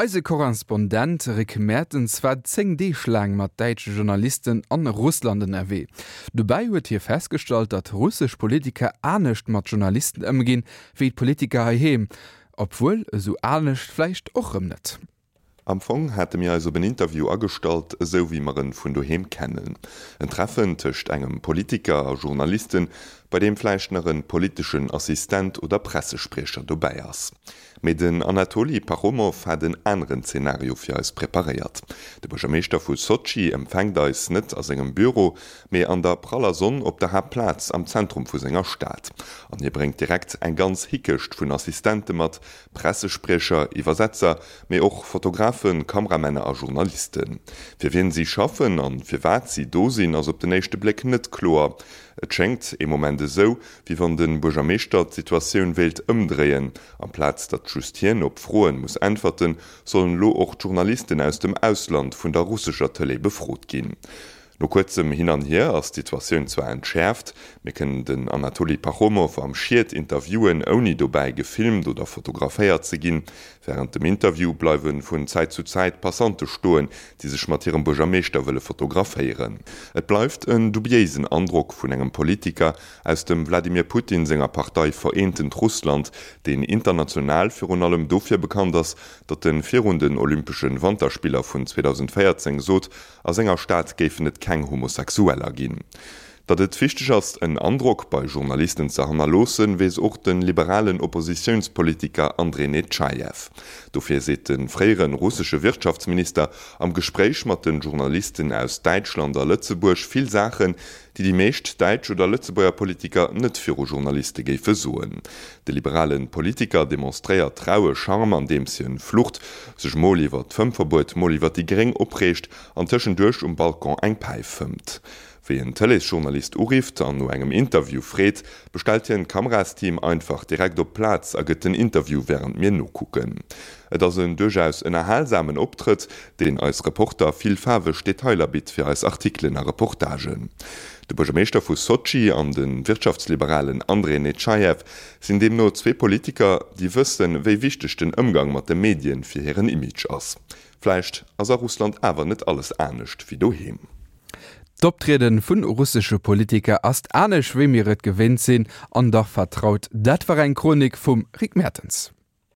Eise Korrespondent Rick Mertens war 10 Deeg laang mat däitsche Journalisten an Russland ënnerwee. Dobäi huet hie festgestallt, datt russesch Politiker anescht mat Journalisten ëmginn, wéi d'Politiker heiheem. Obwuel, esou anescht vläicht och rëm net. Am Fong hate mir eis op en Interview agestallt, esou wéi mer en vun doheem kennen. En Treffen tëscht engem Politiker a Journalisten, bei deem vläicht nach en politeschen Assistent oder Pressespriecher dobäi ass. Mee den Anatoli Pachomow hat en aneren Zenario fir eis preparéiert. De Buergermeeschter vu Sotschi empfänkt eis net a sengem Büro, mee an der praller Sonn op der Haaptplaz am Zentrum vu senger Stad. An hie bréngt direkt eng ganz Hickecht vun Assistente mat, Pressespriecher, Iwwersetzer, mee och Fotografen, Kameramänner a Journalisten. Fir wien si schaffen an firwat si do sinn, ass op den éischte Bléck net kloer. Et schéngt ee Moment esou, wéi wann de Buergermeeschter d'Situatioun wéilt ëmdréien. Amplaz datt just hien op Froen muss äntwerten, sollen elo och d'Journalisten aus dem Ausland vun der russescher Tëlee befrot ginn. No kuerzem Hin an Hier ass d'Situatioun zwar entschäerft, mir kënnen den Anatoli Pachomow am Schiet interviewen, ouni dobäi gefilmt oder fotograféiert ze ginn. Wärend dem Interview bleiwe vun Zäit zu Zäit Passante stoen, déi sech mat hirem Buergermeeschter wëlle fotograféieren. Et bleift en dubiéisen Androck vun engem Politiker aus dem Wladimir Putin senger Partei Vereentent Russland, deen international virun allem dofir bekannt ass, datt e virun den Olympesche Wanterspiller vun 2014 sot, A senger Stad géifen et keng Homosexueller ginn. Datt et wichteg ass, en Androck bei Journalisten ze hannerloossen, weess och de liberalen Oppositiounspolitiker Andrej Netschajew. Dofir seet de fréiere russesche Wirtschaftsminister am Gespréich mat de Journalisten aus Däitschland a Lëtzebuerg vill Saachen, déi déi meescht däitsch oder Lëtzebuerger Politiker net viru Journaliste géife soen. De liberale Politiker demonstréiert raue Charme andeems hien flucht, sech mol iwwer d'Fëmmverbuet, mol iwwer déi Gréng opreegt an tëschenduerch um Balcon eng Päif fëmmt. Wéi en Tëleesjournalist urifft an no engem Interview freet, bestellt hien d'Kamerasteam einfach direkt op d'Plaz a gëtt den Interview wärend mir nokucken. Et ass en duerchaus ënnerhalsamen Optrëtt, deen eis Reporter vill faarweg Detailer bitt fir eis Artikelen a Reportagen. De Buergermeeschter vu Sotschi an de Wirtschaftsliberalen Andrej Netschajew sinn deemno zwee Politiker, déi wëssen, wéi wichteg den Ëmgang mat de Medien fir hiren Image ass. Vläicht ass a Russland awer net alles anescht wéi doheem. D'Optriede vun russesche Politiker ass anescht wéi mir et gewinnt sinn, an dach vertraut. Dat war eng Chronik vum Rick Mertens.